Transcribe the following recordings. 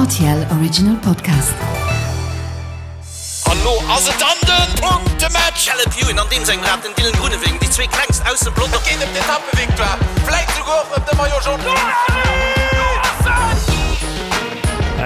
RTL Original Podcast. An lo ass et dann den Punktematch! Caleb Ewan an deem sengem Rad, den Dylan Groenewegen, déi zwee klengst aus dem Pelotong. Et geet ëm d'Etappevictoire, vläit souguer och ëm de Maillot Jaune.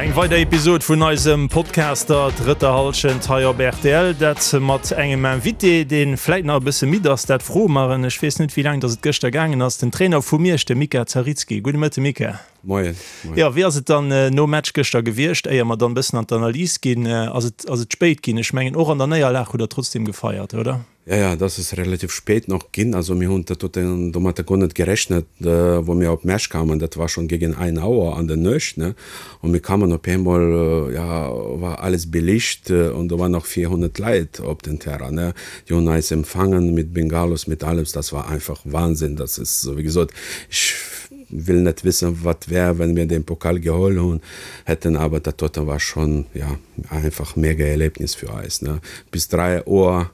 Eng weider Episod vun eisem Podcast der drëtter Hallschent hei op rtl. Dat mat engem Invité, dee vläit nach e bësse midd ass, dat froe mer en. Ech weess net, wéi laang datt et gëschter gaangen ass. Den Trainer vu Miersch, de Mika Zaritski. Gudde Mëtte Mika. Moien. Jo, wéi ass et dann nom Match gëschter gewiescht? Éier mer dann e bëssen an d'Analys ginn, ass et ass et spéit ginn? Ech mengen, och an der Néierlag hutt der trotzdem gefeiert, oder? Ja, ja, das ist relativ spät noch ginn. Also mir hunn dat domatter guer net gerechnet, wou mir op Mersch kamen. Dat war schon gegen ein Auer an der Nuecht, ne. Und mir kamen op eemol, ja, war alles belicht und do waren nach 400 Leit op den Terrain, ne. Déi hunn eis empfangen mit Bengalos, mit alles. Das war einfach Wahnsinn. Das ist, wéi gesot, ech will net wissen, wat wär, wenn mir den Pokal geholl hunn hätten, aber dat doten war schon, ja, einfach mega Erlebnis fir eis, ne. Bis 3 Auer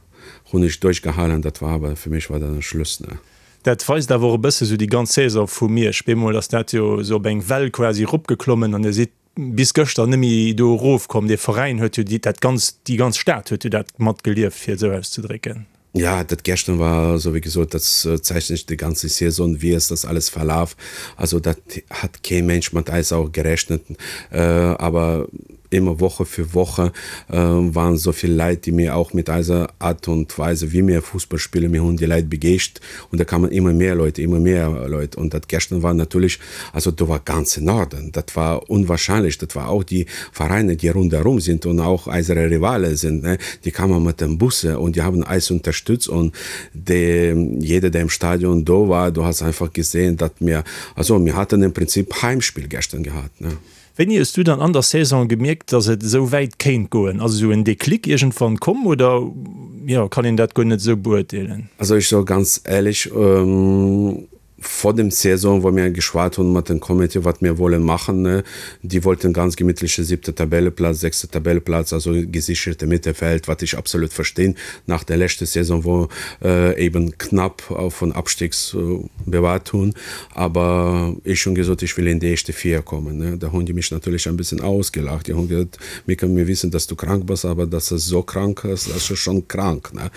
hunn ech duerchgehalen, dat war awer, fir mech war dat en Schluss, ne. Dat weist awer och e bësse sou déi ganz Saison vu Miersch. Bemol ass dat jo sou op eng Well quasi eropgeklommen an Dir sidd bis gëschter net méi do erofkomm. Dee Veräin huet jo déi, dat ganz, déi ganz Stad huet jo dat matgelieft, fir et esou auszedrécken. Ja, dat gestern war, sou wéi gesot, dat zeichnet déi ganze Saison, wéi ass das alles verlaf. Also dat hat kee Mensch mat eis auch gerechnet, awer Immer Woche für Woche waren so vill Leit, déi mir auch mit eiser Art und Weise, wéi mir Fussball spillen, mir hunn déi Leit begeescht und da kamen immer mehr Leute, immer mehr Leute und dat gestern war natürlich, also do war ganze Norden, dat war unwahrscheinlech, dat war auch déi Vereine, déi rundherum sind und auch eisere Rivale sind, ne, déi kamen mat den Busse und die haben eis unterstützt und de, jeder, der im Stadion do war, du hast einfach gesehen, dat mir, also mir hatten im Prinzip Heimspiel gestern gehabt, ne. Wéini hues du dann an der Saison gemierkt, dass et esou wäit kéint goen? Ass esou en Déclic iergendwann komm oder jo, kann een dat guer net esou beurteelen? Also ech soe ganz éierlech, vor dem Saison, wou mir geschwat hunn mat dem Comité, wat mir wollen machen, déi wollten ganz gemittleche siebte Tabelleplatz, sechste Tabelleplatz, also gesicherte Mittelfeld, wat ech absolut verstinn nach der leschte Saison, wou eben knapp vun Abstiegs bewahrt hunn. Aber ech hunn gesot, ech will in déi éischte 4 kommen. Ne? Da hunn déi mech natierlech ein bisschen ausgelacht. Déi hunn gesot, Mika, mir wissen, dass du krank bass, aber dass du so krank bist, das ist schon krank. Ne?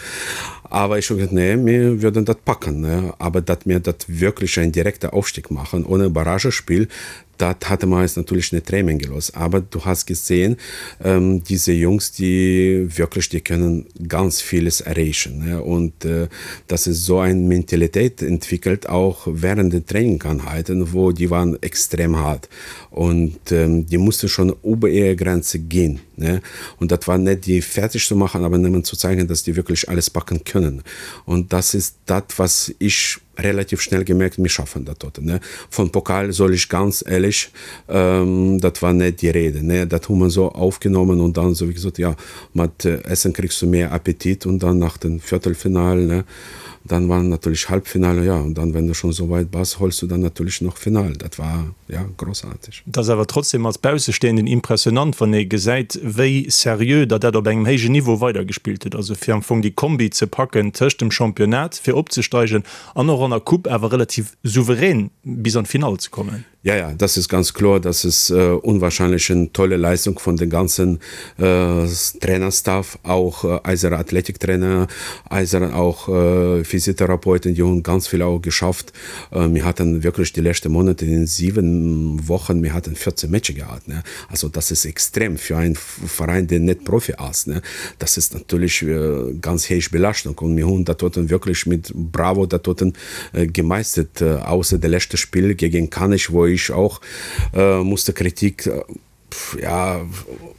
Aber ech hu gesot, nee, mir würden dat packen. Ne? Aber dat mir dat wirklich ein direkter Aufstieg machen, ohne Barragespiel, Dat hate mer eis natierlech net dreemen gelooss. Aber du has gesehen, diese Jungs, déi wierklech, déi kënnen ganz villes erreechen. Und dass se esou eng Mentalitéit entwickelt, auch während den Trainingseinheiten, wou déi waren extrem hart und déi musste schon über ihre Grenze ginn. Und dat war net déi fertig ze maachen, aber nëmmen zu zeigen, dass déi wierklech alles packen kënnen. Und das ist dat, was ich relativ schnell gemerkt, mir schaffen dat doten, ne. Von Pokal soll ich ganz ehrlech, dat war net die Rede, ne. Dat hu mer so aufgenommen und dann so wéi gesot, ja, mat Essen kriegst du mehr Appetit und dann nach den Viertelfinal, ne, dann war natürlich Halbfinale, ja, und dann, wenn du schon so weit bass, holst du dann natürlich noch Final. Dat war, ja, großartig. Et ass awer trotzdem als Baussestehenden impressionant, wann ee gesäit, wéi seriö Der dat op engem héijen Niveau weidergespillt hutt. Also fir am Fong déi Kombi ze packen tëscht dem Championnat, fir opzesteigen, an och an der Coupe awer relativ souverän bis an d'Finall ze kommen. Ja, ja, das ist ganz kloer. Das ist unwahrscheinlech en tolle Leistung vun den ganzen Trainerstaff, auch eiser Athletiktrainer, eiser auch Physiotherapeuten, déi hunn ganz vill auch geschafft. Mir haten wierklech déi leschte Monate in 7 Wochen, mir haten 14 Matcher gehat, ne. Also das ist extrem fir ein Veräin, deen net Profi ass, ne. Das ist natierlech ganz héich Belaschtung und mir hunn dat doten wierklech mit Bravo dat doten gemeistert, ausser de leschte Spill gegen Kanech, wou ech och musste Kritik ja,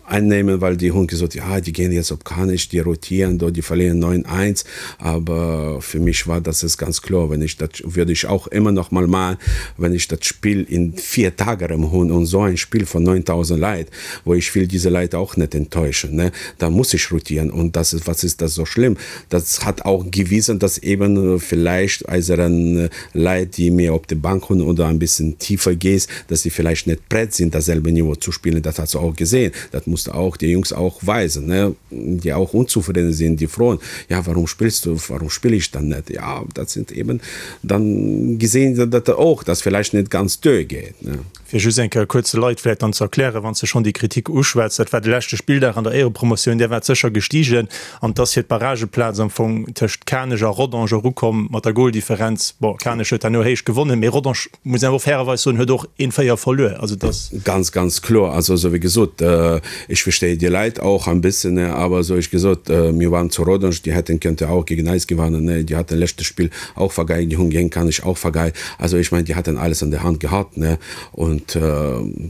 einnehmen, weil die hunn gesot, ja, die gehen jetzt op Kanech, die rotieren do, die verlieren 9, 1. Aber für mich war das es ganz kloer, wenn ich dat, würde ich auch immer noch mal machen, wenn ich dat Spiel in vier Tage erëm hunn und so ein Spiel von 9.000 Leit, wo ich will diese Leit auch net enttäuschen, ne, da muss ich rotieren und das ist, was ist das so schlimm? Das hat auch gewiesen, dass eben vielleicht eiseren Leit, déi mir op de Bank hunn oder ein bisschen tiefer gees, dass déi vielleicht net prett sinn, dasselbe Niveau zu spillen. spielen, das hast du auch gesehen. Das musst du auch die Jungs auch weisen, ne? die auch unzufrieden sind, die frohen, ja, warum spielst du, warum spiele ich dann nicht? Ja, das sind eben dann gesehen, dass auch das vielleicht nicht ganz durchgeht. Ne? Fir just eng Kéier kuerz de Leit vläicht dann ze erklären, wann s de schonn déi Kritik uschwätz, dat war de leschte Spilldag an der Éierepromotioun, där waart sécher gestigen an 't ass fir d'Barrageplaz am Fong tëscht Kanech a Rodange erukomm mat der Goldifferenz. Bon, Kanech huet herno héich gewonnen, mee Rodange, muss een awer och fairerweis soen, huet och een 4 verluer. Also et ass. Ganz, ganz kloer. Also esou wéi gesot, ech verstehe die Leit auch ein bisschen, aber esou ech gesot, mir waren zu Rodange, déi hätten könnte auch gegen eis gewannen, déi hatten leschte Spill auch vergeigt, déi hunn géint Kanech auch vergeigt. Also ich mein, die hatten alles an der Hand gehabt, ne? Und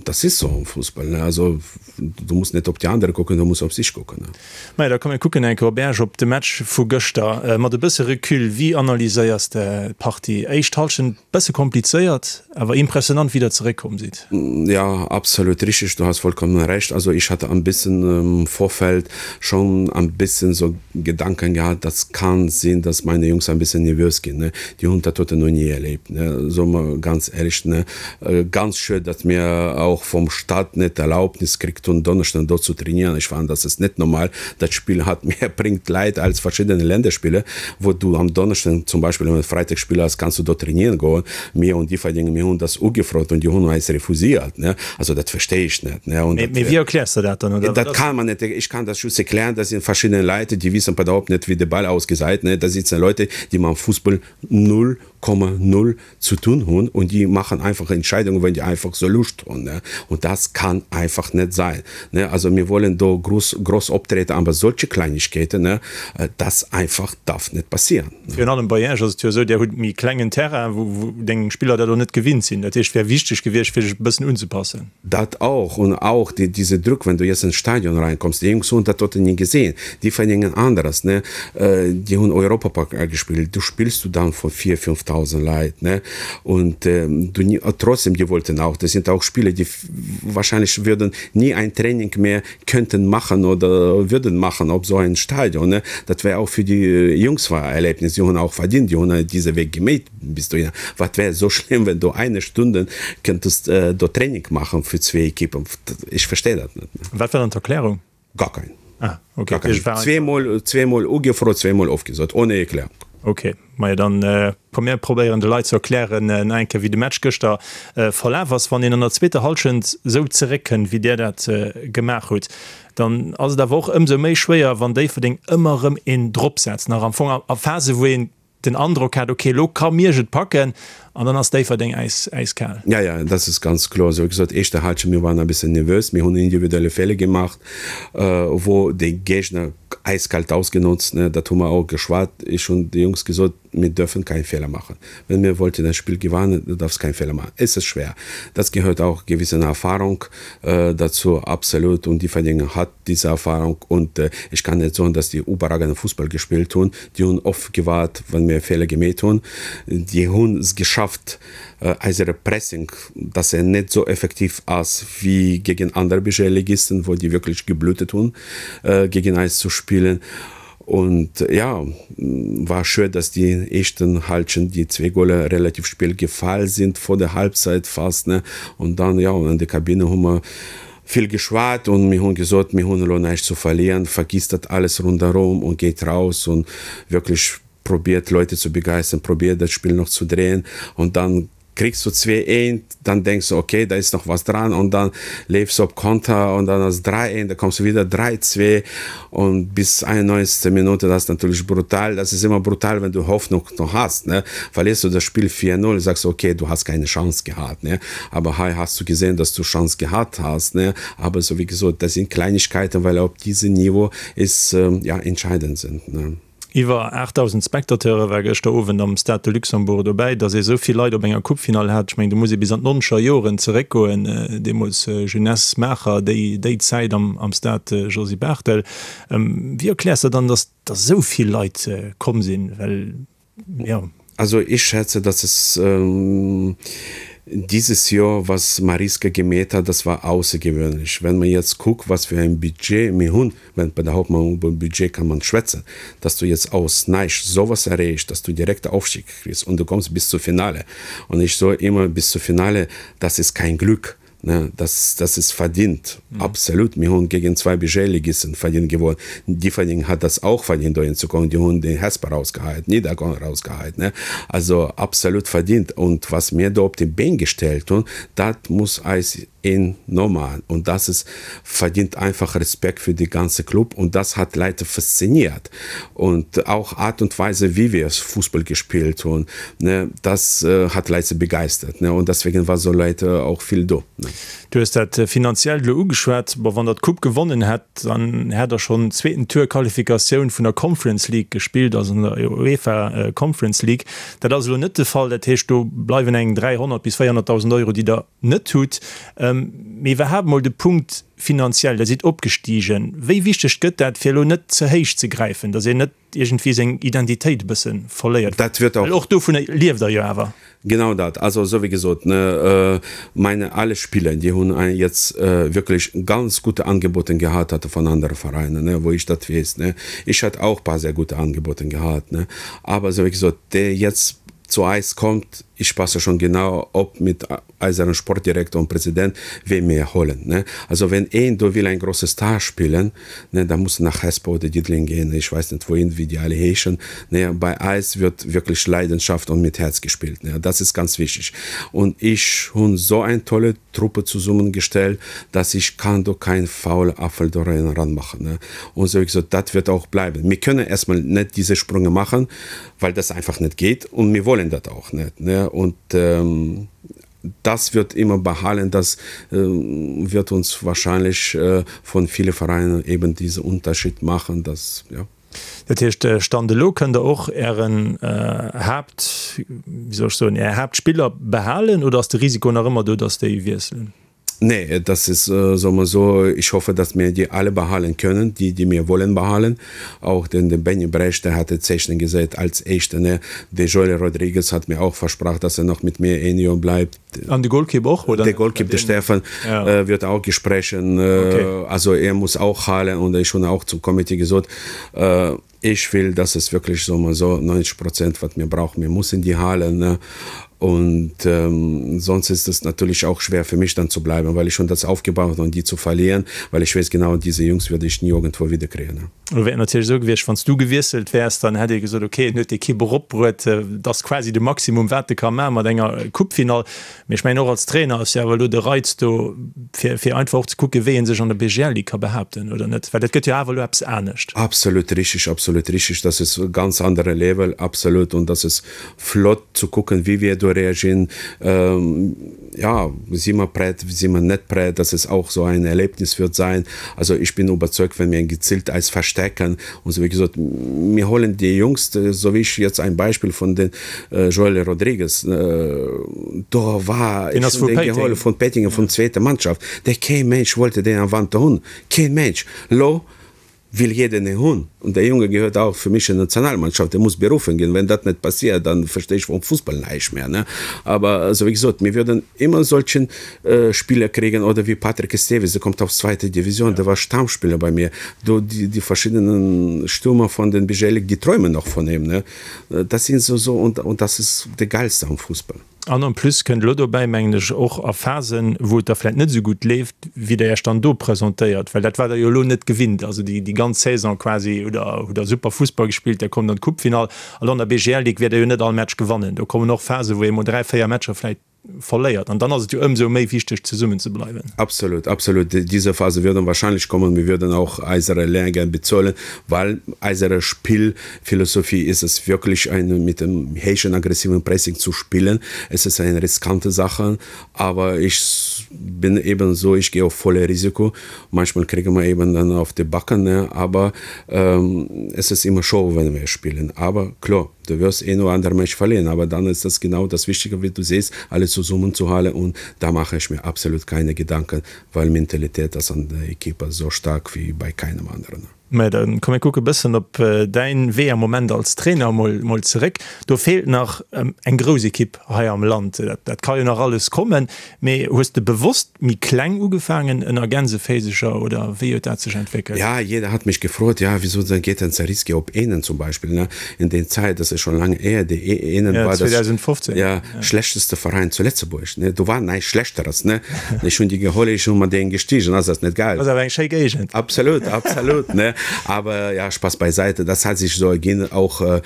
das ist so am Fußball, ne? Also du musst net op die andere kucken, du musst op sich kucken, ne? Majo, da komm mir kucken eng Kéier op Esch, op de Match vu gëschter. Mat e bësse Recul, wéi analyséiers de d'Partie? Éischt Hallschent bësse komplizéiert, awer impressionant wéi der zeréckkomm sidd. Ja, absolut richtig, du hast vollkommen recht. Also ich hatte ein bisschen im Vorfeld schon ein bisschen so Gedanken gehabt, das kann sinn, dass meine Jungs ein bisschen nervös ginn, ne. Déi hunn dat doten noch nie erlebt, ne, soe mer ganz éierlech, ne. Ganz schued, datt mir och vum Staat net d'Erlaubnis kritt hunn, Donneschden do zu trainieren. Ech fannen, dat ass net normal. Dat Spill hat méi bréngt Leit als verschiddene Länderspiller, wou du am Donneschden zum Beispill, wann Freitag Spill ass, kanns du do trainieren goen. Mir un Differdeng, mir hunn das ugefrot und die hunn eis refusiert, ne. Also dat verstehe ich net, ne. Und dat, Mee wéi erkläers de dat dann, oder? Dat kann man net, ich kann das just erklären, dat sinn verschidden Leit, déi wissen überhaupt net, wéi de Ball ausgesäit, ne. Da sitzen Leute, déi mam Fussball 0,0 zu tun hunn und déi machen einfach Entscheidungen, wenn déi einfach sou Lust hunn, ne. Und das kann einfach net sein, ne. Also mir wollen do groß, groß optreten, aber solche Kleinigkeiten, ne, das einfach darf net passieren. Virun allem bei Iech ass et jo esou, Dir hutt méi klengen Terrain, wou deng Spiller dat och net gewinnt sinn. Dat heescht, et wär wichteg gewiescht, fir sech e bëssen unzepassen. Dat auch und auch die, diese Druck, wenn du jetzt ins Stadion reinkommst, déi Jungs hunn dat doten ni gesehen, déi verdéngen aneres, ne, déi hunn Europapokal gespillt, du spillst du dann vor 4, 5.000 Leit, ne, und du, trotzdem, die wollten auch, das sind auch Spieler, die wahrscheinlich würden nie ein Training mehr könnten machen oder würden machen op so ein Stadion, ne, dat wär auch für die Jungs war Erlebnis, die hunn auch verdient, die hunn diese Weg gemeet bis dohinner. Wat wär so schlimm, wenn du eine Stunde könntest do Training machen für zwee Equipen, ech versteh dat net. Wat war dann d'Erklärung? Gar kein. Ah, okay. Gar kein. Zweemol, zweemol ugefrot, zweemol ofgesot, ohne Erklärung. Okay, majo dann komm mir probéieren de Leit ze erklären nach eng Kéier wéi de Match gëschter verlaf ass. Wann een an der zweeter Hallschent esou zeréckkënnt wéi där dat gemaach hutt, dann ass et awer och ëmsou méi schwéier wann Déifferdeng ëmmer erëm een drop setzt, nach am Fong a Phase wou een den Androck hat, okay elo ka Miersch et packen an dann ass Déifferdeng äiskal. Ja, ja, das ist ganz kloer. Esou wéi gesot, éischte Halschent, mir waren e bëssen nervös, mir hunn individuelle Feeler gemacht, wou de Géigner eiskalt ausgenutzt, ne, dat hu mer och geschwat. Ech hunn de Jungs gesot, mir dürfen kein Fehler machen. Wenn mir wollten ein Spiel gewannen, du darfst kein Fehler machen. Es ist schwer. Das gehört auch gewissen Erfahrung dazu, absolut. Und Differdingen hat diese Erfahrung. Und ech kann net soen, dass déi überragenden Fussball gespillt hunn. Déi hunn oft gewaart, wann mir Feeler gemeet hunn. Déi hunn es geschafft, eisere Pressing, dass en net esou effektiv ass wéi gegen aner Bg-Ligisten, wou déi wierklech geblutet hunn, gegen eis zu spillen. Und ja, war schued, dass déi éischten Halschent, déi zwee Goler relativ spéit gefall sinn, vor der Halbzeit fast, ne. Und dann, ja, an der Kabine hu mer vill geschwat und mir hunn gesot, mir hunn elo näischt zu verlieren, vergisst dat alles ronderëm und geht raus und wirklich probiert Leute zu begeistern, probiert das Spiel noch zu drehen und dann kriegst du 2 1, dann denkst du, okay, da ist noch was dran und dann lebst du op Konter und dann ass 3 1, da kommst du wieder 3 2 und bis 91. Minute, das ist natürlich brutal, das ist immer brutal, wenn du Hoffnung noch hast, ne, verlierst du das Spiel 4 0, sagst du, okay, du hast keine Chance gehabt, ne, aber hei hast du gesehen, dass du Chance gehabt hast, ne, aber so wie gesot, das sind Kleinigkeiten, weil op diesem Niveau ist, ja, entscheidend sind, ne. Iwwer 8.000 Spectateure war gëschter Owend am Stade de Luxembourg dobäi. Datt ee sou vill Leit op enger Coupefinall hat, ech mengen, do muss ee bis an d'nonzeger Joren zeréckgoen, deemools Jeunesse Maacher, déi déi Zäit am Stade Josy Barthel. Wéi erkläers de dann, datt da sou vill Leit komm sinn? Well, jo. Also ich schätze, dass es dieses Joer, was Mariska gemäht hat, das war außergewöhnlich. Wenn man jetzt guckt, was für ein Budget mir hunn, Wenn bei der Hauptmann über Budget kann man schwätzen, dass du jetzt aus näischt sowas erreechs, dass du direkt Aufstieg kriegst und du kommst bis zur Finale. Und ich so immer bis zur Finale, das ist kein Glück. Ne, das, das ist verdient. Mhm. Absolut. Mir hunn gegen zwei BG-Ligisten verdient gewonnen. Differding hat das auch verdient, dohin zu kommen. Die hunn den Hesper rausgeheit, Niederkorn rausgeheit. Ne? Also absolut verdient. Und was mir do op de Been gestellt hunn, dat muss eis een nomaen. Und das ist verdient einfach Respekt für die ganze Club. Und das hat Leute fasziniert. Und auch Art und Weise, wie wir Fußball gespielt hunn, ne, das hat Leute begeistert. Ne? Und deswegen war so Leute auch vill do. Ne? Du hues dat Finanziellt elo ugeschwat. Bon, wann der d'Coupe gewonnen hätt, dann hätt der schonn zweeten Tour Qualifikatioun vun der Conference League gespillt, also an der UEFA Conference League. Dat ass elo net de Fall. Dat heescht, do bleiwen eng 300 bis 400.000 Euro, déi der net hutt. Mee iwwerhaapt mol de Punkt finanziell, Der sidd opgestigen. Wéi wichteg gëtt dat, fir elo net ze héich ze gräifen, datt een net iergendwéi seng Identitéit e bësse verléiert? Dat wird och. Well och dovunner lieft Der jo awer. Genau dat. Also esou wéi gesot, ne, meine alle Spieler, déi hunn jetzt wirklich ganz gute Angebote gehat hatte von andere Vereinen, ne, wou ich dat weess, ne. Ich hat auch paar sehr gute Angebote gehat, ne. Aber esou wéi gesot, dee jetzt zu eis kommt, ich passe schon genau op mit eiseren Sportdirektor und Präsident, wee mir holen, ne. Also wenn een do will ein große Star spillen, ne, da muss nach Hesper oder Diddeleng gehen, ich weiß net wohin, wéi déi alle heeschen, ne. Bei eis wird wirklich Leidenschaft und mit Herz gespielt, ne, das ist ganz wichtig. Und ich hunn so ein tolle Truppe zesummengestellt, dass ich kann do kein faule Apfel do ranmachen, ne. Und so wéi gesot, dat wird auch bleiben. Mir können erstmal net diese Sprünge machen, weil das einfach net geht und mir wollen dat auch net, ne. Und das wird immer behalen, das wird uns wahrscheinlich von viele Vereinen eben diese Unterschied machen, dass, ja. Dat heescht, Stand elo kënnt Der och Ären Haapt, wéi soll ech soen, Är Haaptspiller behalen oder ass de Risiko nach ëmmer do, dass déi wiesselen? Nee, das ist, soll man so, ich hoffe, dass mir die alle behalen können, die, die mir wollen behalen. Auch den, den Benny Brecht, der hatte Zeichen gesetzt als Echte, ne. De Joel Rodriguez hat mir auch versprach, dass er noch mit mir ein Jahr bleibt. An de Golkipp och, oder? De Golkipp, de Stefan, ja. wird auch gesprechen. Okay. Also er muss auch halen und ich schon auch zum Komitee gesot, äh, ich will, dass es wirklich so mal so 90 Prozent, wat mir brauchen, mir müssen die halen, ne. Und ähm, sonst ist es natürlich auch schwer für mich dann zu bleiben, weil ich schon das aufgebaut und die zu verlieren, weil ich weiß genau, diese Jungs würde ich nie irgendwo wieder kriegen. Ne? Lo wär et natierlech esou gewiescht, wann s du gewiesselt wäers, dann hätt ee gesot, okay, en huet d'Ekipp eropbruet, et ass quasi de Maximum, wat e ka maachen mat enger Coupefinall. Mee ech mengen, och als Trainer ass jo awer elo de Reiz do, fir, fir einfach och ze kucken, wéi ee sech an der BGL Ligue ka behaapten, oder net? Well dat gëtt jo awer elo eppes anescht. Absolut richtig, absolut richtig. Das ist e ganz andere Level, absolut. Und das ist flott zu kucken, wéi wir do reagieren. Ja, si mer prett, si mer net prett? Das ist auch so ein Erlebnis wird sein. Also ich bin überzeugt, wenn mir gezielt eis verstecken und so, wéi gesot, mir holen déi Jungs, so wéi ich jetzt ein Beispiel von den Joel Rodrigues, do war Den ass vu Péiteng. Vun Péiteng, vun zweeter Mannschaft, dee kee Mensch wollte deen am Wanter hunn, keen Mensch. Lo will jeder en hunn und der Junge gehört auch für mich in Nationalmannschaft, der muss berufen ginn. Wenn dat net passiert, dann verstehe ich vom Fußball näischt mehr, ne. Aber also wéi gesot, mir würden immer solchen Spieler kriegen oder wie Patrick Esteves, der kommt aus zweite Division, der war Stammspieler bei mir. Do die, die verschiedenen Stürmer von den BGL, die träumen noch von ihm, ne. Dat sinn esou so und, und das ist de geilste am Fußball. An en plus kënnt elo dobäi, mengen ech, och a Phasen, wou et da vläicht net esou gutt leeft, wéi Der Iech dann do presentéiert, well dat waart Der jo elo net gewinnt. Also déi, déi ganz Saison quasi hutt Der, hutt Der super Fussball gespillt, Der kommt an d'Coupefinall. An an der BGL Ligue wäert Der jo net all Match gewannen. Do kommen och Phasen, wou ee mol 3, 4 Matcher vläicht verléiert. An dann ass et jo ëmsou méi wichteg, zesummen ze bleiwen. Absolut, absolut. Diese Phase würden wahrscheinlich kommen. Wir würden auch eisere Lehrgeld bezahlen, weil eisere Spielphilosophie ist es wirklich, eine, mit dem heischen, aggressiven Pressing zu spielen. Es ist eine riskante Sache, aber ich bin eben so, ich gehe auf volle Risiko. Manchmal kriegen wir eben dann auf die Backen, ne? aber ähm, es ist immer Show, wenn wir spielen. Aber klar, Du wirst eh nur andere Match verlieren, aber dann ist das genau das Wichtige, wie du siehst, alle zusammenzuhalten und da mache ich mir absolut keine Gedanken, weil Mentalität ist an der Equipe so stark wie bei keinem anderen. Mä da komm mir kucke bëssen op däin Wee am Moment als Trainer mol mol zeréck. Do feelt nach eng grouss Ekipp hei am Land. Dat dat ka jo nach alles kommen. Mee hues de bewosst méi kleng ugefaangen ënner Gänseféiseger oder wéi huet dat sech entwéckelt? Ja, jeder hat mich gefrot, ja, wieso dann geht denn Zariski op Ehnen zum Beispiel, ne? In den Zeit, das ist schon lange her, déi Ehnen war das 2015, ja, schlechteste Verein zu Lëtzebuerg, ne? Do war näischt Schlechteres, ne? Ech hunn déi geholl, ech hunn mat deenen gestiegen, ass das net geil? Ass awer eng schéi Géigend. Absolut, absolut, ne? Aber ja, Spaß beiseite, das hat sich so erginn, auch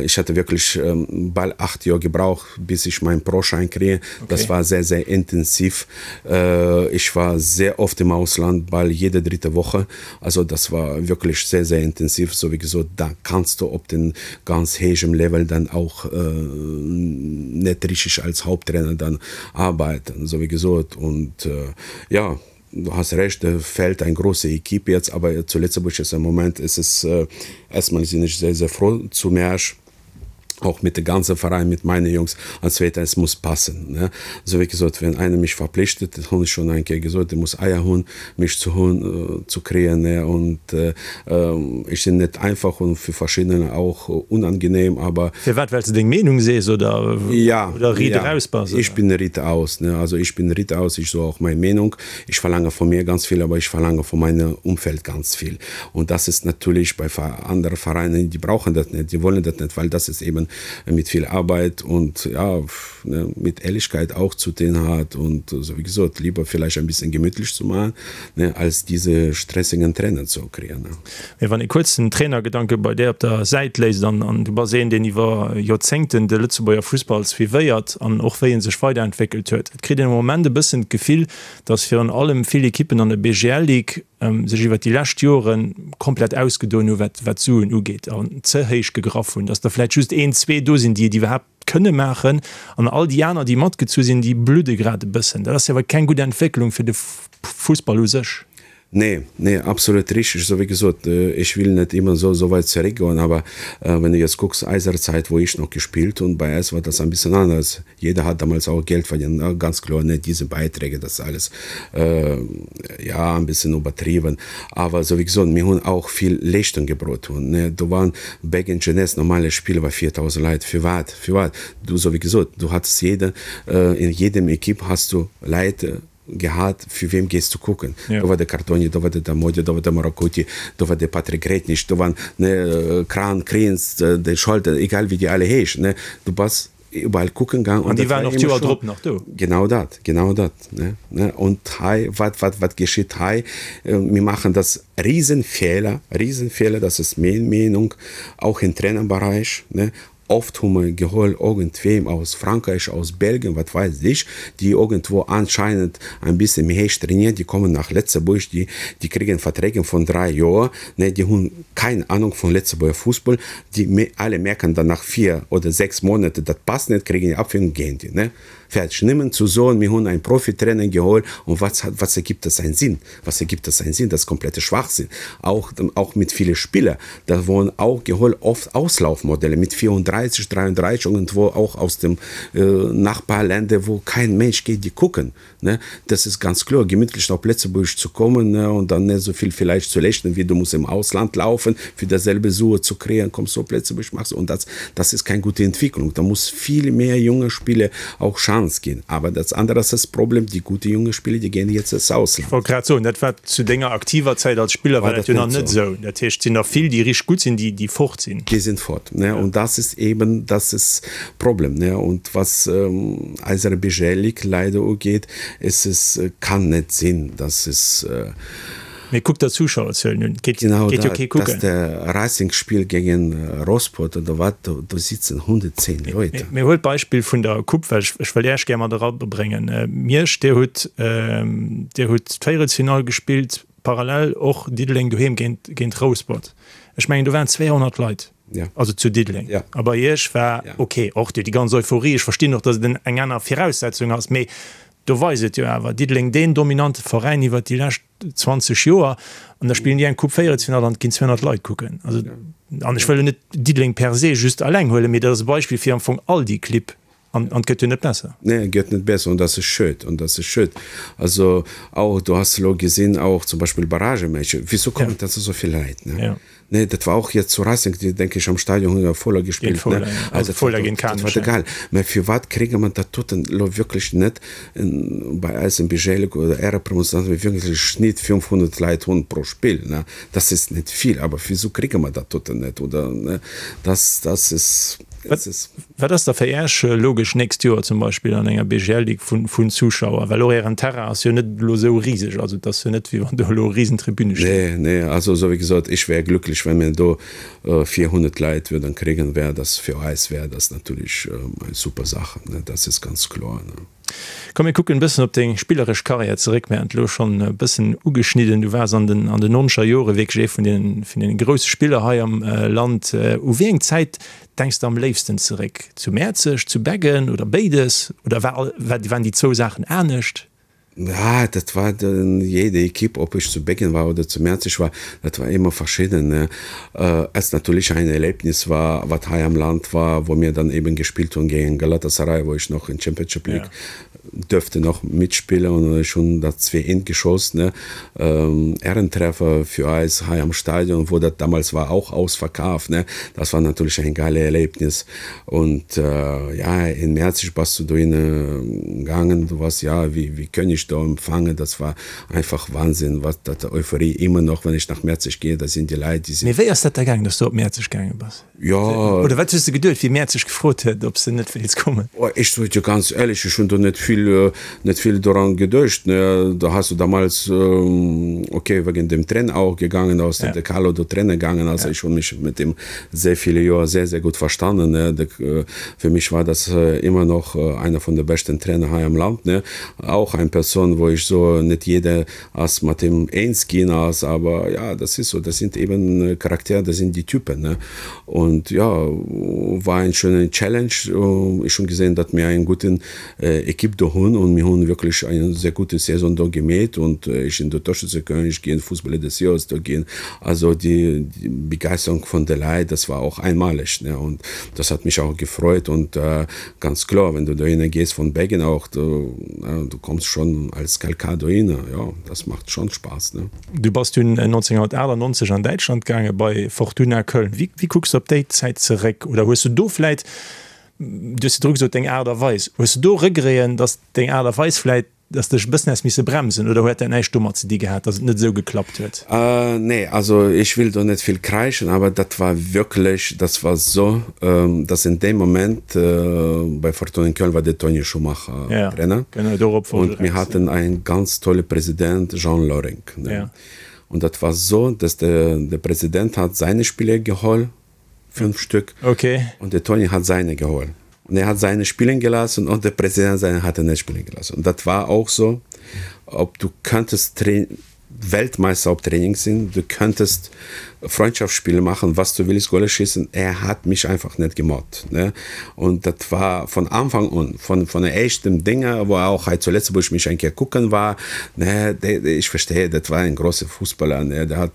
ich hatte wirklich bal 8 Joer gebraucht, bis ich mein Pro-Schein kriege. Das war sehr, sehr intensiv. Ich war sehr oft im Ausland, bal jede dritte Woche. Also das war wirklich sehr, sehr intensiv. So wie gesot, da kannst du op den ganz héijem Level dann auch net richtig als Haupttrainer dann arbeiten, so wie gesot. Und ja, du hast recht, da fehlt eng große Equipe jetzt, aber zu Lëtzebuerg ist im Moment ist es, erstmal sinn ech sehr, sehr froh zu Märsch. auch mit de ganze Verein mit meine Jungs an zweitens es muss passen ne so wéi gesot wenn einer mich verpflichtet dat hunn ech schon eng Kéier gesot dee muss Eier hunn mech ze hunn ze kréien ne und ech sinn net einfach und fir verschiddener auch unangenehm aber Firwat well s de deng Meenung sees oder ja oder riit ja eraus bass ich bin riit aus ne also ich bin riit aus ich so auch mei Meenung ich verlange von mir ganz viel aber ich verlange von meinem Umfeld ganz viel Und das ist natürlich bei anderen Vereinen, die brauchen das nicht, die wollen das nicht, weil das ist eben mit viel Arbeit und ja, ne, mit Ehrlichkeit auch zu tun hat und so wie gesagt, lieber vielleicht ein bisschen gemütlich zu machen, ne, als diese stressigen Trainer zu kriegen. Ne. Mee wann ee kuerz den Trainergedanke bei där op der Säit léisst, an an du bass een, deen iwwer Joerzéngten de Lëtzebuerger Fussball suivéiert an och wéi en sech weiderentwéckelt huet, et kritt een am Moment e bëssen d'Gefill, datt virun allem vill Ekippen an der BGL-Ligue sech iwwert déi lescht Jore komplett ausgedoen hu wat d'Suen ugeet an ze héich gegraff hunn, datt der vläicht just een, zwee do sinn, déi et iwwerhaapt kënne maachen an all déi aner, déi matgezu sinn, déi bludde grad e bëssen. Dat ass jo awer keng gutt Entwécklung fir de Fussball u sech. Nee, nee, absolut richtig. Esou wéi gesot, ech will net immer so so weit zeréckgoen, aber wenn du jetzt gucks, eiser Zeit, wou ich noch gespielt hunn, bei eis war das ein bisschen anders. Jeder hat damals auch Geld verdient, ne, ganz kloer net diese Beiträge, das ist alles ja ein bisschen übertrieben, awer sou wéi gesot, mir hunn auch vill Leeschtung gebrot hunn, ne, do waren Beggen Jeunesse normale Spiel war 4.000 Leit, firwat, firwat, du sou wéi gesot, du hattest jede, in jedem Equipe hast du Leit gehat, fir wem gees du kucken, do war de Cartoni, do war de Damodio, do war de Morocutti, do war de Patrick Gretnich, do waren, ne, Kran, Kriens, de Scholten, egal wéi déi alle heeschen, ne, du bass Überall kucken gaang. An déi waren och d'Joer drop nach do. Genau dat, genau dat, ne, ne. Und hei, wat, wat, wat geschitt hei? Mir maachen das Riesenfehler, Riesenfehler, das ist meng Meenung, auch im Trainerbereich, ne. Oft hu mer geholl irgendwem aus Frankreich, aus Belgien, wat weiß ich, déi irgendwo anscheinend ein bisschen méi héich trainieren, déi kommen nach Lëtzebuerg, déi, déi kriegen Verträge von 3 Joer, ne, déi hunn keng Ahnung vun Lëtzebuerger Fussball, Déi alle merken dann nach 4 oder 6 Monate, dat passt net, kriegen déi Abfindung, gehen déi, ne? Fertig. Nëmmen zu soen, mir hunn ein Profitrainer geholt und was hat, was ergibt das einen Sinn? Was ergibt das einen Sinn? Das ist komplette Schwachsinn. Auch, auch mit viele Spieler, da wurden auch geholt oft Auslaufmodelle mit 34, 33 irgendwo auch aus dem Nachbarländer, wo kein Mensch geht, die gucken. Ne, das ist ganz kloer, gemütlich op Lëtzebuerg zu kommen, ne, und dann net esou vill vielleicht zu lechten, wéi du muss im Ausland laufen, fir dasselbe Sue zu kréien, kommst du op Lëtzebuerg, machst und das, das ist keng gute Entwicklung. Da muss viel mehr junge Spieler auch Chance ginn. Aber das andere ass das Problem, die gute junge Spieler, die gehen jetzt ins Ausland. Ech wollt grad soen, dat war zu denger aktiver Zäit als Spiller war dat jo nach net esou. Dat heescht, et sinn der vill, déi richteg gutt sinn, déi, déi fort sinn. Déi sinn fort, ne, und das ist eben, das ist Problem, ne, und was eiser BGL-Ligue leider ugeet, es es kann net sinn, dass es. Mee kuck der Zuschauerzuelen un, geet jo kee kucken. Genau dat, dass de Racing spielt géingen Rosport oder wat, do do sitzen 110 Leute. Mee huel d'Beispill vun der Coupe, well ech wëll Äech gär mat erabréngen. Miersch, Dir hutt Dir hutt d'Véierelsfinall gespillt, parallel och Diddeleng doheem géint géint Rouspert. Ech mengen do waren 200 Leit. Ja. Also zu Diddeleng. Ja. A bei Iech war ja. okay, och déi ganz Euphorie, ech verstinn och, datt et eng aner Viraussetzung ass, mee do weist et jo awer, Diddeleng deen dominante Veräin iwwert déi lescht 20 Joer an da spillen déi eng Coupe Véierelsfinall an et ginn 200 Leit kucken. Also, an ech wëll jo net Diddeleng per se just alleng huelen, mee dat ass e Beispill fir am Fong all déi Clibb. An et gëtt jo net besser. Nee, et gëtt net besser an dat ass schued, an dat ass schued. Also auch, du has elo gesinn, auch zum Beispill Barragematcher, wieso kommen da esou vill Leit, ne? Ja. Nee, dat war auch jetzt zu Racing, déi denke ich am Stadion hunn der Fola gespillt, ne? Fola, ja. Also Fola géint Kanech, dat war geil. Mä firwat kréie mer dat doten elo wierklech net bei eis im Budget oder Ärepromotion, dass mir wierklech Schnitt 500 Leit hunn pro Spill, ne? Das ist net vill, awer wieso kréie mer dat doten net oder, ne? Das, das ist. Wat ass da fir Äech logesch nächst Joer zum Beispill an enger BGL-Ligue vun Zuschauer? Well och Ären Terrain ass jo net elo esou riseg, also et ass jo net wéi wann do elo Risentribüne stinn. Nee, nee, also esou wéi gesot, ech wär glücklech, wa mir do 400 Leit würden kriegen, wär das fir eis wär das natürlich eng super Sache, ne, das ist ganz kloer, ne. Komm mir kucken e bëssen op deng spilleresch Karriär zeréck. Mir haten et elo schonn e bëssen ugeschnidden, du waars an den an den nonzeger Jore wierklech ee vun den vun den grousse Spiller hei am Land. U wéi eng Zäit denks de am léifsten zeréck? Zu Mäerzeg, zu Beggen oder béides? Oder war waren déi zwou Saachen anescht? Ja, dat war dann jede Equipe, ob ech zu Beggen war oder zu Mäerzeg war, dat war ëmmer verschidden, ne. Es natürlich ein Erlebnis war, wat hei am Land war, wou mir dann eben gespielt hunn géint Galatasaray, wou ech noch in Championship League dürfte noch mitspillen und ech hunn dat 2 eent geschoss, ne. Ehrentreffer für eis hei am Stadion, wo dat damals war auch ausverkaf, ne. Das war natürlich ein geile Erlebnis. Und ja, in Mäerzeg bass du dohinne gaangen, du wars ja wéi wéi König do empfangen, das war einfach Wahnsinn, wat dat Euphorie immer noch, wenn ich nach Mäerzeg gehe, da sinn déi Leit, déi sinn. Mee wéi ass dat da gaangen, dass du op Mäerzeg gaange bass? Jo. Oder wat hues de geduet, wéi Mäerzeg gefrot huet, ob s de net wéilts kommen? Oh, ech soe dir ganz éierlech, ech hunn do net vill, net vill doran geduecht, ne. Da has du damals, okay, wegen dem Trainer auch gegangen, da ass de Carlo do Trainer gaangen, also ech hunn mech mit dem sehr viele Joer sehr, sehr gut verstanden, ne. De, fir mech war das immer noch einer von de beschten Trainer hei am Land, ne. Auch eng Persoun, wou ech soe, net jeder ass mat him eens ginn ass, awer ja, das ist so, das sind eben Charaktere, das sind die Typen, ne. Und ja, war eng schöne Challenge. Ech hunn gesehen, datt mir eng guten Equipe do hunn und mir hunn wierklech eng sehr gute Saison do gemeet und ech sinn do Torschützekönig ginn, Fußballer des Jahres do ginn. Also déi Begeisterung vun de Leit, das war och einmalig, ne, und das hat mich auch gefreut und ganz kloer, wenn du dohinner gees von Beggen auch, du, du kommst schon als Kalkar dohinner, jo, das macht schon Spaß, ne. Du bass dunn 1998 an Däitschland gaange bei Fortuna Köln. Wéi, wéi kucks du op déi Zäit zeréck? Oder hues du do vläit, du hues virdru gesot, deng Aart a Weis, hues du do Regreten, datt deng Aart a Weis vläit, datt dech e bëssen häss misse bremsen oder huet dat näischt domat ze di gehat, datt et net esou geklappt huet? Nee, also ech will do net vill kräischen, awer dat war wierklech, das war so, dass in deem Moment bei Fortuna Köln war de Toni Schumacher Trainer und mir hatten einen ganz tolle President, Jean Loring, ne? Und dat war so, dass de, de President hat seine Spieler geholl, 5 Stück. Okay. Und der Toni hat seine geholt. Und er hat seine spielen gelassen und der Präsident seine hat er nicht spielen gelassen. Und das war auch so, ob du könntest Weltmeister op Training sind, du könntest Freundschaftsspiele machen, was du willst, Golle schießen. Er hat mich einfach nicht gemobbt. Ne? Und das war von Anfang an, von, von der ersten Dinge, wo er auch halt zuletzt, wo ich mich ein gucken war, ne, der, ich verstehe, das war ein großer Fußballer, ne? der hat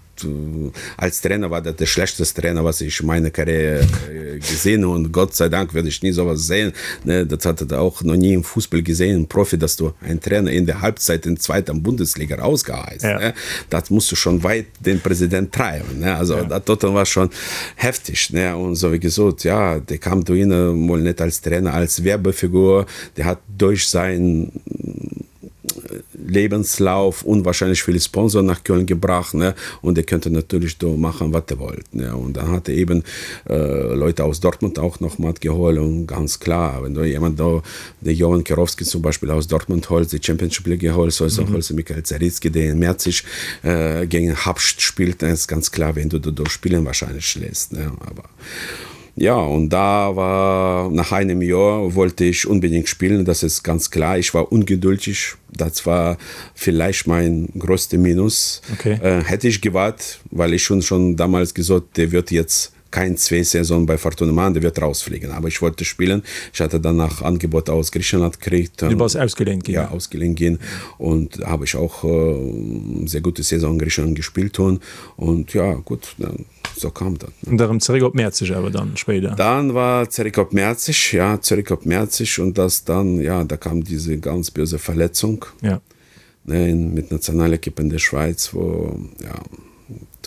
Als Trainer war dat de schlechteste Trainer, was ich in meiner Karriere gesehen habe. Und Gott sei Dank werde ich nie sowas sehen. Ne, das hat er auch noch nie im Fußball gesehen, im Profi, dass du einen Trainer in der Halbzeit in zweiter Bundesliga rausgeheißt. Ja. Ne? Das musst du schon weit den Präsident treiben. Ne? Also ja. das dort war schon heftig. Ne? Und so wie gesagt, ja, der kam da mal nicht als Trainer, als Werbefigur. Der hat durch sein Lebenslauf unwahrscheinlich viele Sponsoren nach Köln gebracht ne? und er könnte natürlich do machen wat er wollt ne? und dann hat er eben äh, Leute aus Dortmund auch noch mal geholt und ganz klar wenn du jemand da der Johann Kerowski zum Beispiel aus Dortmund holt die Championship League geholt soll mhm. holst Michael Zaritzki der in Merzig äh, gegen Habst spielt dann ist ganz klar wenn du da spielen wahrscheinlich lässt ne? aber Ja, und da war nach einem Jahr wollte ich unbedingt spielen, das ist ganz klar. Ich war ungeduldig, das war vielleicht mein größte Minus. Okay. Äh, hätte ich gewartet, weil ich schon schon damals gesagt, der wird jetzt kein zwei Saison bei Fortuna machen, der wird rausfliegen. Aber ich wollte spielen. Ich hatte danach Angebot aus Griechenland gekriegt. Du warst ausgeliehen gehen. Ja, ausgeliehen gehen und habe ich auch äh, sehr gute Saison in Griechenland gespielt und, und ja gut dann. so kam dat. An da rëm zeréck op Mäerzeg awer dann spéider? Dann war zeréck op Mäerzeg, ja, zeréck op Mäerzeg und das dann, ja, da kam diese ganz böse Verletzung. Ja. Ne, mit Nationalequipe in der Schweiz, wo, ja,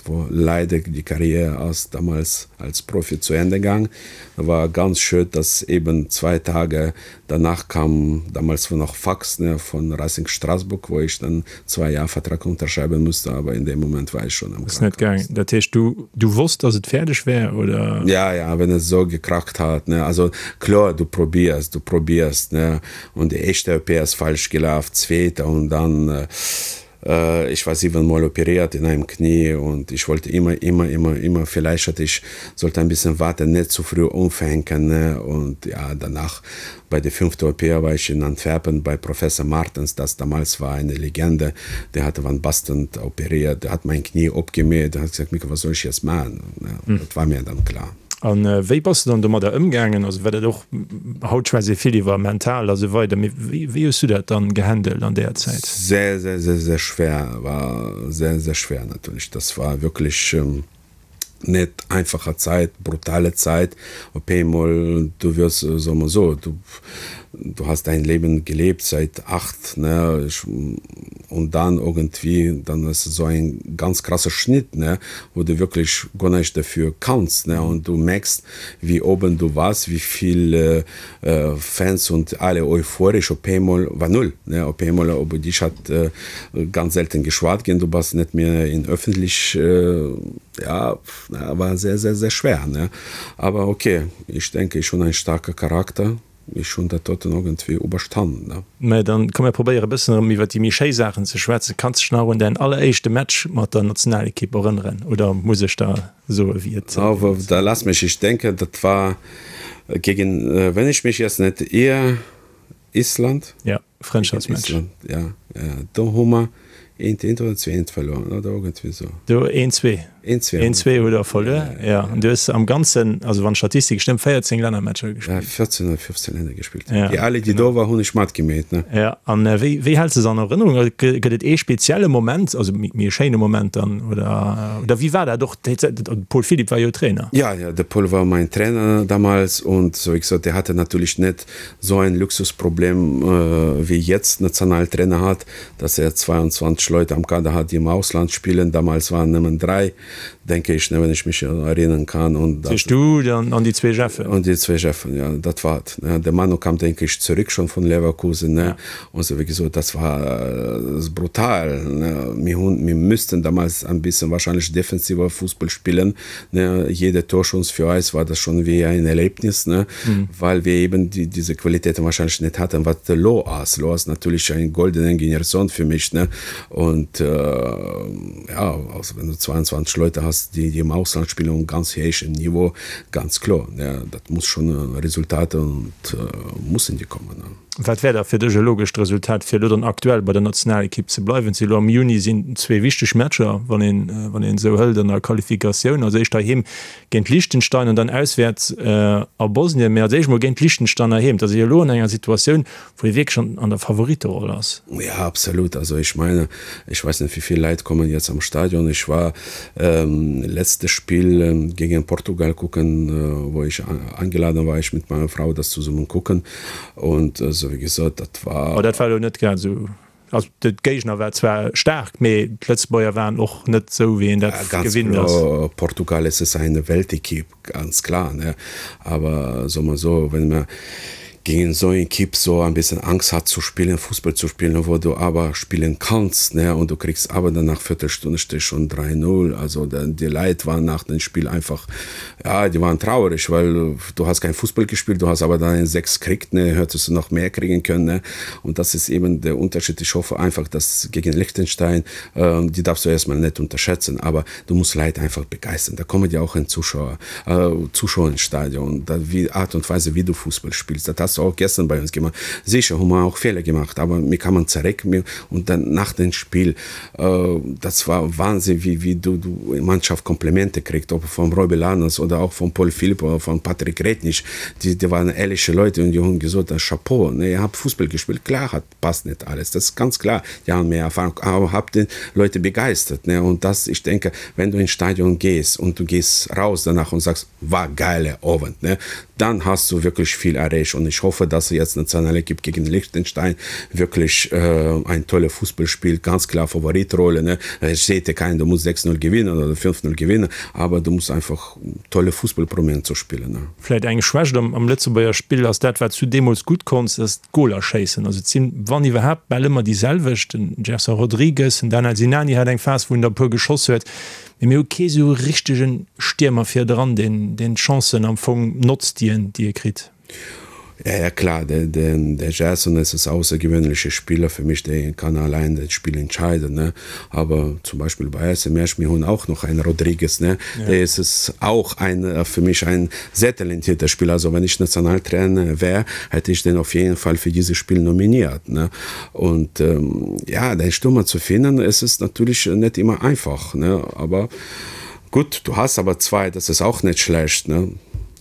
wo leider die Karriere ass damals als Profi zu Ende gang. Da war ganz schön, dass eben zwei Tage danach kam damals war noch Fax ne, von Racing Straßburg, wo ich dann zwei Jahre Vertrag unterschreiben musste, aber in dem Moment war ich schon am Ass net gaang. Dat heescht du du wosst, dass et fäerdeg wär oder? Ja, ja, wenn es so gekracht hat ne, also kloer, du probierst, du probierst ne, und die éischte OP ass falsch gelaf, zweete und dann Ich war siebenmal operiert in einem Knie und ich wollte immer, immer, immer, immer, vielleicht hatte ich, sollte ein bisschen warten, net zu früh umfänken ne? Und ja, danach bei der fünfte OP war ich in Antwerpen bei Professor Martens, das damals war eine Legende, der hatte Van Basten operiert, der hat mein Knie opgemäht, der hat gesagt, Mika, was soll ich jetzt machen? Ne? Das war mir dann klar. An wéi bass de dann domadder ëmgaangen? Also war dat och, haut schwätzt ee vill iwwer mental a sou weider, mee wéi wéi hues du dat dann gehandelt an där Zäit? Sehr, sehr, sehr, sehr schwer, war sehr, sehr schwer natürlich. Das war wirklich net einfacher Zäit, brutale Zäit. Op eemol, du wirst, soe mer esou, du du hast dein Leben gelebt seit 8, ne, ich, und dann irgendwie, dann ist so ein ganz krasser Schnitt, ne, wo du wirklich gar nicht dafür kannst, ne, und du merkst, wie oben du warst, wie viel äh, Fans und alle euphorisch, op einmal war null, ne, op einmal, über dich hat äh, ganz selten geschwat gehen, du warst nicht mehr in öffentlich, äh, ja, war sehr, sehr, sehr schwer, ne, aber okay, ich denke, ich schon ein starker Charakter, Ech hunn dat doten irgendwie uberstannen, ne. Mä dann komm mir probéiere e bëssen erëm iwwer déi méi schéi Saachen ze schwätzen. Kanns dech nach un däin alleréischte Match mat der Nationalekipp erënneren oder muss ech der soe wéi et Oh, da lass mich, ich denke, dat war gegen, wenn ich mich jetzt net ir, Island? Ja. Frëndschaftsmatch. Island, ja, ja. Do hu mer eent eent oder 2 eent verluer, oder iergendwéi esou. Do eent zwee. Eent zwee. Eent zwee hutt der verluer, ja. An du hues am Ganzen, also wann d'Statistik stëmmt, 14 Lännermatcher gespillt. Ja, 14 oder 15 Länner gespillt. Ja, déi alle, déi do war, hunn ech matgemeet, ne. Ja, an wéi, wéi häls de se an Erënnerung? Also gëtt et ee spezielle Moment, also méi e schéine Moment dann, oder, oder wéi war dat och? De Paul Philipp war jo Trainer. Ja, ja, de Paul war mein Trainer damals und so wéi gesot, der hatte natürlich net so ein Luxusproblem wéi jetzt Nationaltrainer hat, dass er 22 Leute am Kader hat, die im Ausland spielen. Damals waren nëmmen 3, denke ich, wenn ich mich erinnern kann. Und das Sich du dann an déi zwee Jeffen. Und déi zwee Jeffen, ja, dat war et. Der Manu kam, denke ich, zurück schon von Leverkusen, ne? Und so, wéi gesot, das war brutal, ne? Mir hunn, mir müssten damals ein bisschen wahrscheinlich defensiver Fußball spielen, Ne, jede Torchance für eis war das schon wie ein Erlebnis, ne, mhm. weil wir eben die, diese Qualitäten wahrscheinlich nicht hatten, was elo ass. Elo ass natürlich eng goldene Generation für mich, ne, und äh, ja, also wenn du 22 Leute hast, die, die im Ausland spielen und ganz héichen Niveau, ganz klar, ne, dat muss schon Resultate und äh, mussen die kommen. Ne. Wat wär da fir dech e logescht Resultat, fir elo dann aktuell bei der Nationalekipp ze bleiwen? Elo am Juni sinn zwee wichteg Matcher, wann een wann een esou hëlt, an der Qualifikatioun. Als éischt heiheem géint Liechtenstein an dann auswäerts a Bosnien. Mee als éischt mol géint Liechtenstein heiheem. Dat ass ee jo elo an enger Situatioun, wou ee wierklech an an der Favoritteroll ass. Ja, absolut. Also ech meine, ech weess net, wéi vill Leit kommen jetzt am Stadion. Ech war letzte Spiel gegen Portugal kucken, wou ech angeladen war, ech mit meiner Frau das zusammen kucken. Und esou wéi gesot, dat war. Oh, dat war elo net grad esou. Also de Géigner war zwar staark, mee d'Lëtzebuerger waren och net esou, wéi een dat gewinnt ass. Ganz kloer, Portugal es ist eine Weltequipe, ganz klar, ne. Aber soe mer esou, wenn mer gegen esou eng Equipe so ein bisschen Angst hat zu spielen, Fußball zu spielen, wo du awer spillen kanns, ne, und du kriegst awer dann nach Viertelstunde steet schon 3, 0, also déi Leit waren nach dem Spiel einfach Ja, die waren traurig, weil du hast kein Fußball gespielt, du hast aber dann ein 6 kriegt, ne, hättest du noch mehr kriegen können. Ne? Und das ist eben der Unterschied. Ich hoffe einfach, dass gegen Liechtenstein, äh, die darfst du erstmal nicht unterschätzen, aber du musst Leute einfach begeistern. Da kommen ja auch ein Zuschauer, äh, Zuschauer ins Stadion. Da, wie Art und Weise, wie du Fußball spielst, das hast du. hast du auch gestern bei uns gemacht. Sicher haben wir auch Fehler gemacht, aber mir kann man zurück mir und dann nach dem Spiel, äh, das war Wahnsinn, wie, wie du, du Mannschaft Komplimente kriegt, ob vom Robbie Lanas oder auch von Paul Philipp oder von Patrick Rednich, die, die waren ehrliche Leute und die haben gesagt, Chapeau, ne, ihr habt Fußball gespielt, klar hat passt nicht alles, das ist ganz klar, die haben mehr Erfahrung, aber habt die Leute begeistert, ne, und das, ich denke, wenn du ins Stadion gehst und du gehst raus danach und sagst, war geile Abend, ne, dann hast du wirklich viel erreicht und ich hoffe, dass jetzt Nationalequipe gegen Liechtenstein wirklich äh, ein tolle Fußball spielt, ganz klar Favoritrolle, ne, es steht ja kein, du musst 6-0 gewinnen oder 5-0 gewinnen, aber du musst einfach tolle Fußball probieren zu spielen, ne. Vläit eng Schwächt am Lëtzebuerger Spill ass dat, wat s du deemools gutt konns, dat ass d'Goler schéissen. Also et sinn, wann iwwerhaapt, bal ëmmer déi selwecht. Den Gerson Rodrigues, den Danel Sinani hat eng Phas, wou en der e puer geschoss huet. Mee mir hu kee sou richtege Stiermer virdran, deen d'Chancen am Fong notzt, déi en, déi e kritt. Ja, ja klar, der, der, der Gerson ist es außergewöhnliche Spieler für mich, der kann allein das Spiel entscheiden, ne? Aber zum Beispiel bei SC Mersch, mir hun auch noch einen Rodriguez, ne? Ja. Der ist es auch ein, äh, für mich ein sehr talentierter Spieler. Also wenn ich Nationaltrainer wäre, hätte ich den auf jeden Fall für dieses Spiel nominiert, ne? Und ähm, ja, den Stürmer zu finden, ist es natürlich nicht immer einfach, ne? Aber gut, du hast aber zwei, das ist auch nicht schlecht, ne?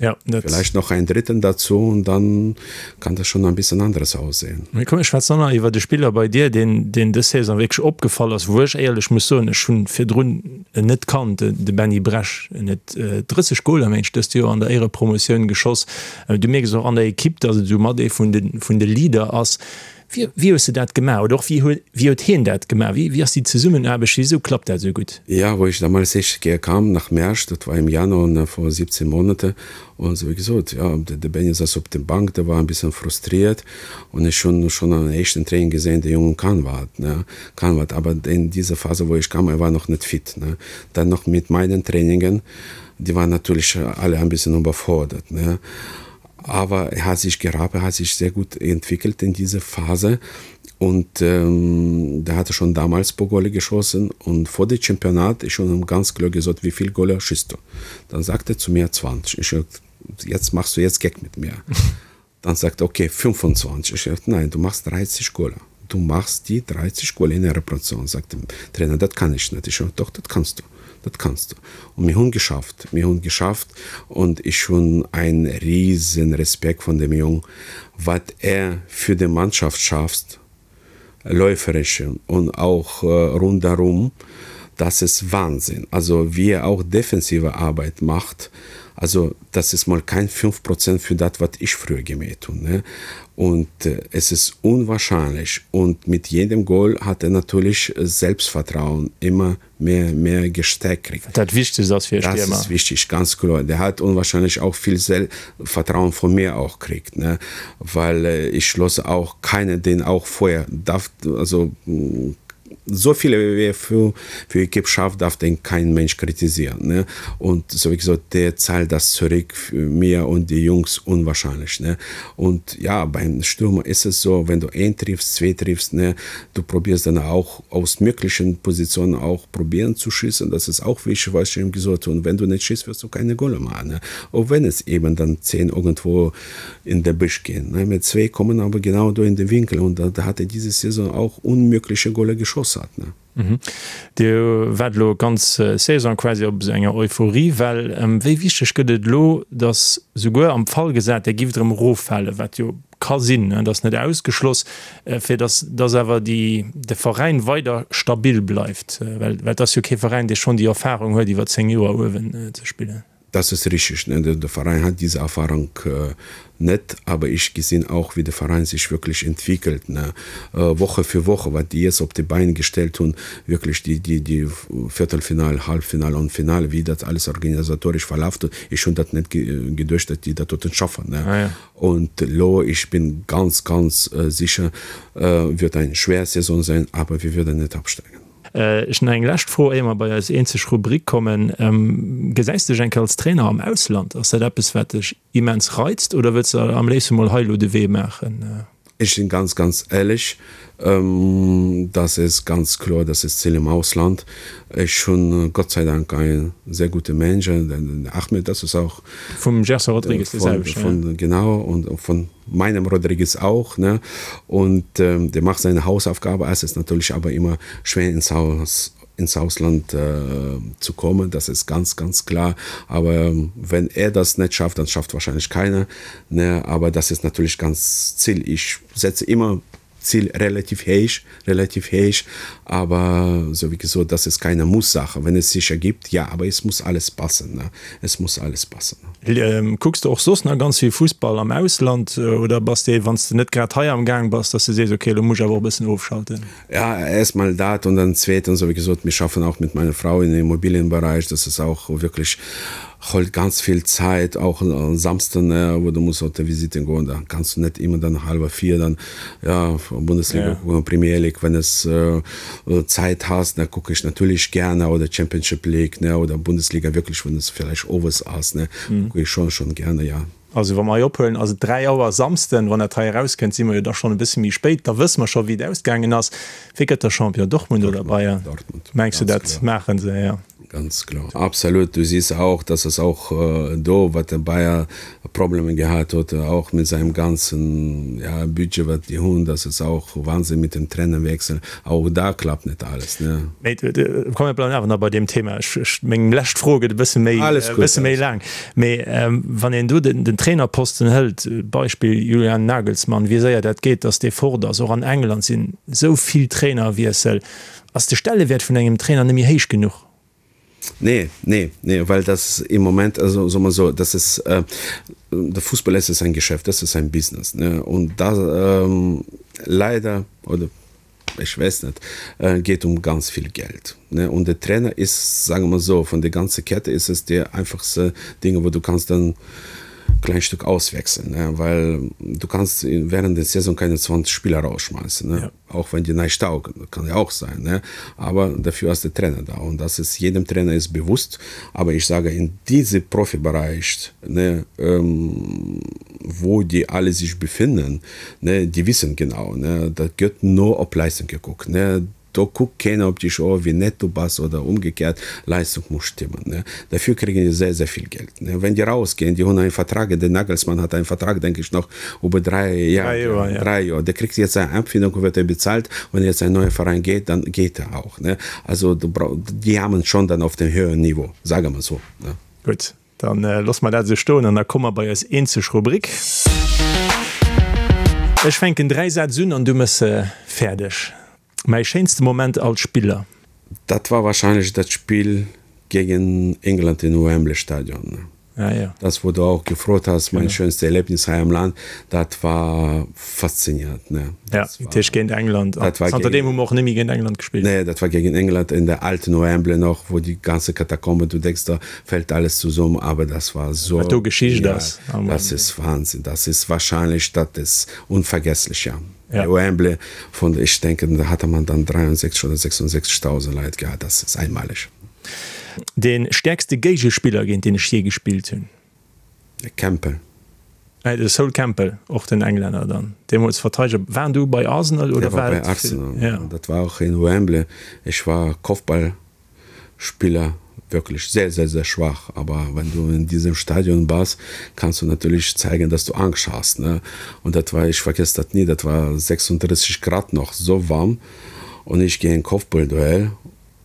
Ja, dat. Vielleicht noch einen dritten dazu und dann kann das schon ein bisschen anderes aussehen. Mee komm, mir schwätzen och nach iwwer de Spiller bei dir, deen, deen dës Saison wierklech opgefall ass, wou ech éierlech muss soen, ech hunn virdrun en net kannt, de Benny Bresch. En huet 30 Goler, mengen ech, dëst Joer an der Éierepromotioun geschoss. Du mierks och an der Ekipp, datt et esou mat ee vun de, vun de Leader ass. Wéi, wéi hues de dat gemaach oder och wéi huet, wéi huet hien dat gemaach? Wéi, wéi ass déi Zesummenaarbecht? Wisou klappt dat esou gutt? Ja, wou ech damals éischte Kéier kam nach Mersch, dat war im Januar, ne, vor 17 Monate, und so wéi gesot, ja, de, de Benny sass op der Bank, der war ein bisschen frustriert, und ech hunn schon am éischten Training gesehen, de Jungen kann wat, ne, kann wat, aber in dieser Phase, wou ech kam, er war noch net fit, ne. Dann noch mit meinen Trainingen, die waren natürlich alle ein bisschen überfordert, ne. Aber er hat sich gerappt, er hat sich sehr gut entwickelt in dieser Phase und ähm, da hat er schon damals pro Golle geschossen und vor dem Championat ist schon ganz klar gesagt, wie viel Golle schießt du. Dann sagt er zu mir 20. Ich sag, jetzt machst du jetzt Gag mit mir. Dann sagt er, okay 25. Ich sag, nein, du machst 30 Golle. Du machst die 30 Golle in der Repression, sagt der Trainer, das kann ich nicht. Ich sag, doch, das kannst du. Das kannst du. Und wir haben geschafft. Wir haben geschafft und ich schon einen riesen Respekt von dem Jungen, was er für die Mannschaft schafft, läuferische und auch äh, rundherum, das ist Wahnsinn. Also wie er auch defensive Arbeit macht, also das ist mal kein 5 Prozent für das, was ich früher gemäht habe. Ne? Und äh, es ist unwahrscheinlich. Und mit jedem Goal hat er natürlich Selbstvertrauen immer mehr mehr gestärkt kriegt. Dat wichtigst ass fir e Stiermer. Das ist wichtig, ganz kloer. Der hat unwahrscheinlich auch viel Selbstvertrauen von mir auch kriegt, ne, weil ich lasse auch keine den auch vorher darf also so viele wie er für für Equipe schafft, darf den kein Mensch kritisieren, ne. Und so wie gesagt, der zahlt das zurück für mir und die Jungs unwahrscheinlich, ne. Und ja, beim Stürmer ist es so, wenn du een triffst, zwei triffst, ne, du probierst dann auch aus möglichen Positionen auch probieren zu schießen, das ist auch wichtig, was ich ihm gesagt habe. Und wenn du nicht schießt, wirst du keine Golle machen, ne. Auch wenn es eben dann 10 irgendwo in der Büsch gehen, ne. Mit zwei kommen aber genau do in den Winkel und da, da hat er diese Saison auch unmögliche Golle geschossen hat, ne. Dir waart elo ganz Saison quasi op esou enger Euphoriewell. Wéi wichteg gëtt et elo, datt souguer am Fall gesat, Dir gifft erëm eroffalen, wat jo ka sinn, dat ass net ausgeschloss, fir datt datt awer déi de Veräin weider stabil bleift? Well et ass jo kee Veräin, dee schonn déi Erfarung huet, iwwer 10 Joer uewen ze spillen. Das ist richtig, ne? Der Verein hat diese Erfahrung net, aber ich gesinn auch, wie de Verein sich wirklich entwickelt, ne? Woche für Woche, wat déi jetzt op de Bein gestellt hunn, wirklich déi, déi, déi Viertelfinale, Halbfinale und Finale, wéi dat alles organisatorisch verlaft huet. Ech hunn dat net geduecht, dat déi dat doten schaffen, ne? Und elo, ich bin ganz, ganz sicher, wird eng schwer Saison sein, aber wir werden net absteigen. Ech nach eng lescht Fro, éier mer bei eis eenzeg Rubrik kommen. Gesäis de dech eng Kéier als Trainer am Ausland? Ass dat eppes, wat dech immens reizt oder wëlls de am léifste mol hei elo de Wee maachen? Ich bin ganz ganz ehrlich, ähm, das ist ganz klar, das ist Ziel im Ausland. Ich schon Gott sei Dank ein sehr gute Manager, den Ahmed, das ist auch vum Gerson Rodrigues von, selben, von, ja. genau und von meinem Rodriguez auch ne und ähm, der macht seine Hausaufgabe es ist natürlich aber immer schwer ins Haus ins Ausland äh, zu kommen das ist ganz ganz klar aber ähm, wenn er das nicht schafft dann schafft wahrscheinlich keiner ne aber das ist natürlich ganz Ziel ich setze immer Ziel relativ hoch relativ hoch aber so wie gesagt das ist keine Musssache wenn es sich ergibt ja aber es muss alles passen ne es muss alles passen ähm, Kucks de och soss nach ganz vill Fussball am Ausland äh, oder bass de wann s de net grad hei am Gaang bass, dass de sees okay lo muss ech awer och e bëssen ofschalten? Ja erstmal dat und dann zweitens so wie gesagt wir schaffen auch mit meiner Frau in Immobilienbereich das ist auch wirklich holt ganz viel Zeit auch am Samstag ne wo du musst auf der Visite goen da kannst du net immer dann halber 4 dann ja Bundesliga ja. gucken Premier League wenn es äh, Zeit hast da gucke ich natürlich gerne oder Championship League ne oder Bundesliga wirklich wenn es vielleicht owes ass ne mhm. gucke ich schon schon gerne ja. Also wa mer hei ophuelen, ass et 3 Auer Samsden. Wann dat hei erauskënnt, si mer jo da schonn e bësse méi spéit. Da wësse mer scho wéi et ausgaangen ass. Wie gëtt da Champion? Dortmund oder Bayern? Dortmund. Mengs du dat maachen se? Ja. Ganz klar. Absolut. Du siehst auch, dass es auch äh, do, wat de Bayer Probleme gehat huet, auch mit seinem ganzen ja, Budget, wat die hunn, das ist auch Wahnsinn mit dem Trainerwechsel. Auch da klappt net alles, ne. Mee komm, mir bleiwen awer nach bei deem Thema. Ech, ech, meng lescht Fro gëtt e bësse méi, Alles e gut, bësse méi laang. Mee wann een do den, den Trainerposten hëlt, Beispill Julian Nagelsmann, wéi séier dat geet, datt dee fort ass. Och an England sinn esou vill Trainerwiessel. Ass de Stellewäert vun engem Trainer net méi héich genuch? Nee, nee, nee, well das im Moment, also soll man so, das ist, äh, der Fußball es ist ein Geschäft, das ist ein Business, ne? Und da ähm, leider oder ich weiß nicht, äh, geht um ganz viel Geld. Ne? Und der Trainer ist, sagen wir so, von der ganzen Kette ist es der einfachste Dinge, wo du kannst dann klein Stück auswechseln, ne? weil du kannst während der Saison keine 20 Spieler rausschmeißen. Ne? Ja. Auch wenn die nicht taugen, kann ja auch sein. Ne? Aber dafür ist der Trainer da und das ist jedem Trainer ist bewusst. Aber ich sage, in diesem Profibereich, ne, ähm, wo die alle sich befinden, ne, die wissen genau, ne, da gëtt no op Leistung gekuckt. Ne? Do kuckt keiner op dich, oh, wie nett du bass oder umgekehrt, Leistung muss stimmen. Ne? Dafür kriegen die sehr, sehr viel Geld. Ne? Wenn die rausgehen, die haben einen Vertrag, der Nagelsmann hat einen Vertrag, denke ich, noch über drei Jahre. Drei Jahre, ja. Drei Jahre. Der kriegt jetzt seine Abfindung und wird er bezahlt. Wenn er jetzt ein neuer Verein geht, dann geht er auch. Ne? Also du brauch, die haben schon dann auf dem höheren Niveau, sagen wir so. Ne? Gut. Dann loosse mer dat esou stoen an da komme mer bei eis eenzeg Rubrik. Ech fänken 3 Sätz un an du mëss se fäerdeg. Mäi schéinste Moment als Spiller? Dat war wahrscheinlech dat Spill gegen England in Wembley Stadion. Ah ja. Das wou du auch gefrot has, mein schönste Erlebnis hei am Land, dat war faszinierend, ne. Ja, dat heescht géint England. An zanter deem hu mer och net méi géint England gespillt. Nee, dat war gegen England in der alten Wembley noch, wou déi ganze Katakomben, du denkst, da fällt alles zusammen, aber das war so Wat do Geschicht ass. Das ist Wahnsinn, das ist wahrscheinlich, dat ist unvergesslich, ja. Ja. Wembley von, ich denke, da hatte man dann 63 oder 66.000 Leit gehabt, das ist einmalig. Dee stäerkste Géigespiller, géint deen ech jee gespillt hunn? De Campbell. De Sol Campbell, och den Englänner dann, deemools Verteideger. War en du bei Arsenal oder war et? Der war bei Arsenal, ja. Dat war och in Wembley. Ech war Kopfballspiller, wirklich sehr, sehr, sehr schwach. Aber wenn du in diesem Stadion bass, kannst du natürlich zeigen, dass du Angst hast, ne? Und dat war, ich vergesse dat nie, dat war 36 Grad noch, so warm. Und ich gehe in Kopfballduell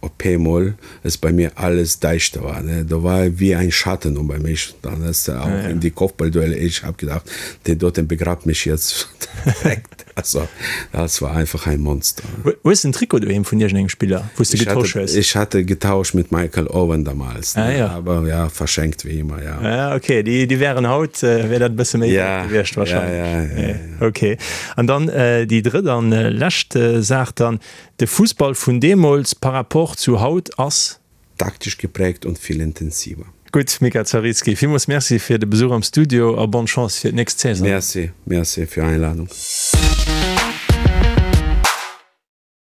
op eemol es bei mir alles däischter war, ne, do war wéi ein Schatten über mich, dann ist er auch in die Kopfballduelle, ich hab gedacht, der dort begrabt mich jetzt direkt, also das war einfach ein Monster. Hues de en Trikot doheem vun iergendengem Spiller, wou s de getosch hues? Ich hatte getauscht mit Michael Owen damals, ne, aber ja, verschenkt wéi immer, ja. Ah ok, déi déi wären haut, wär dat e bësse méi wäert gewiescht wahrscheinlech. Ja, ja, ja. Ok, an dann déi drëtt an lescht Saach dann, De Fussball vun deemools par rapport zu haut ass. Taktisch geprägt und viel intensiver. Gutt, Mika Zaritzky, villmools Merci fir de Besuch am Studio a bonne Chance fir d'nächst Saison. Merci, merci fir Einladung.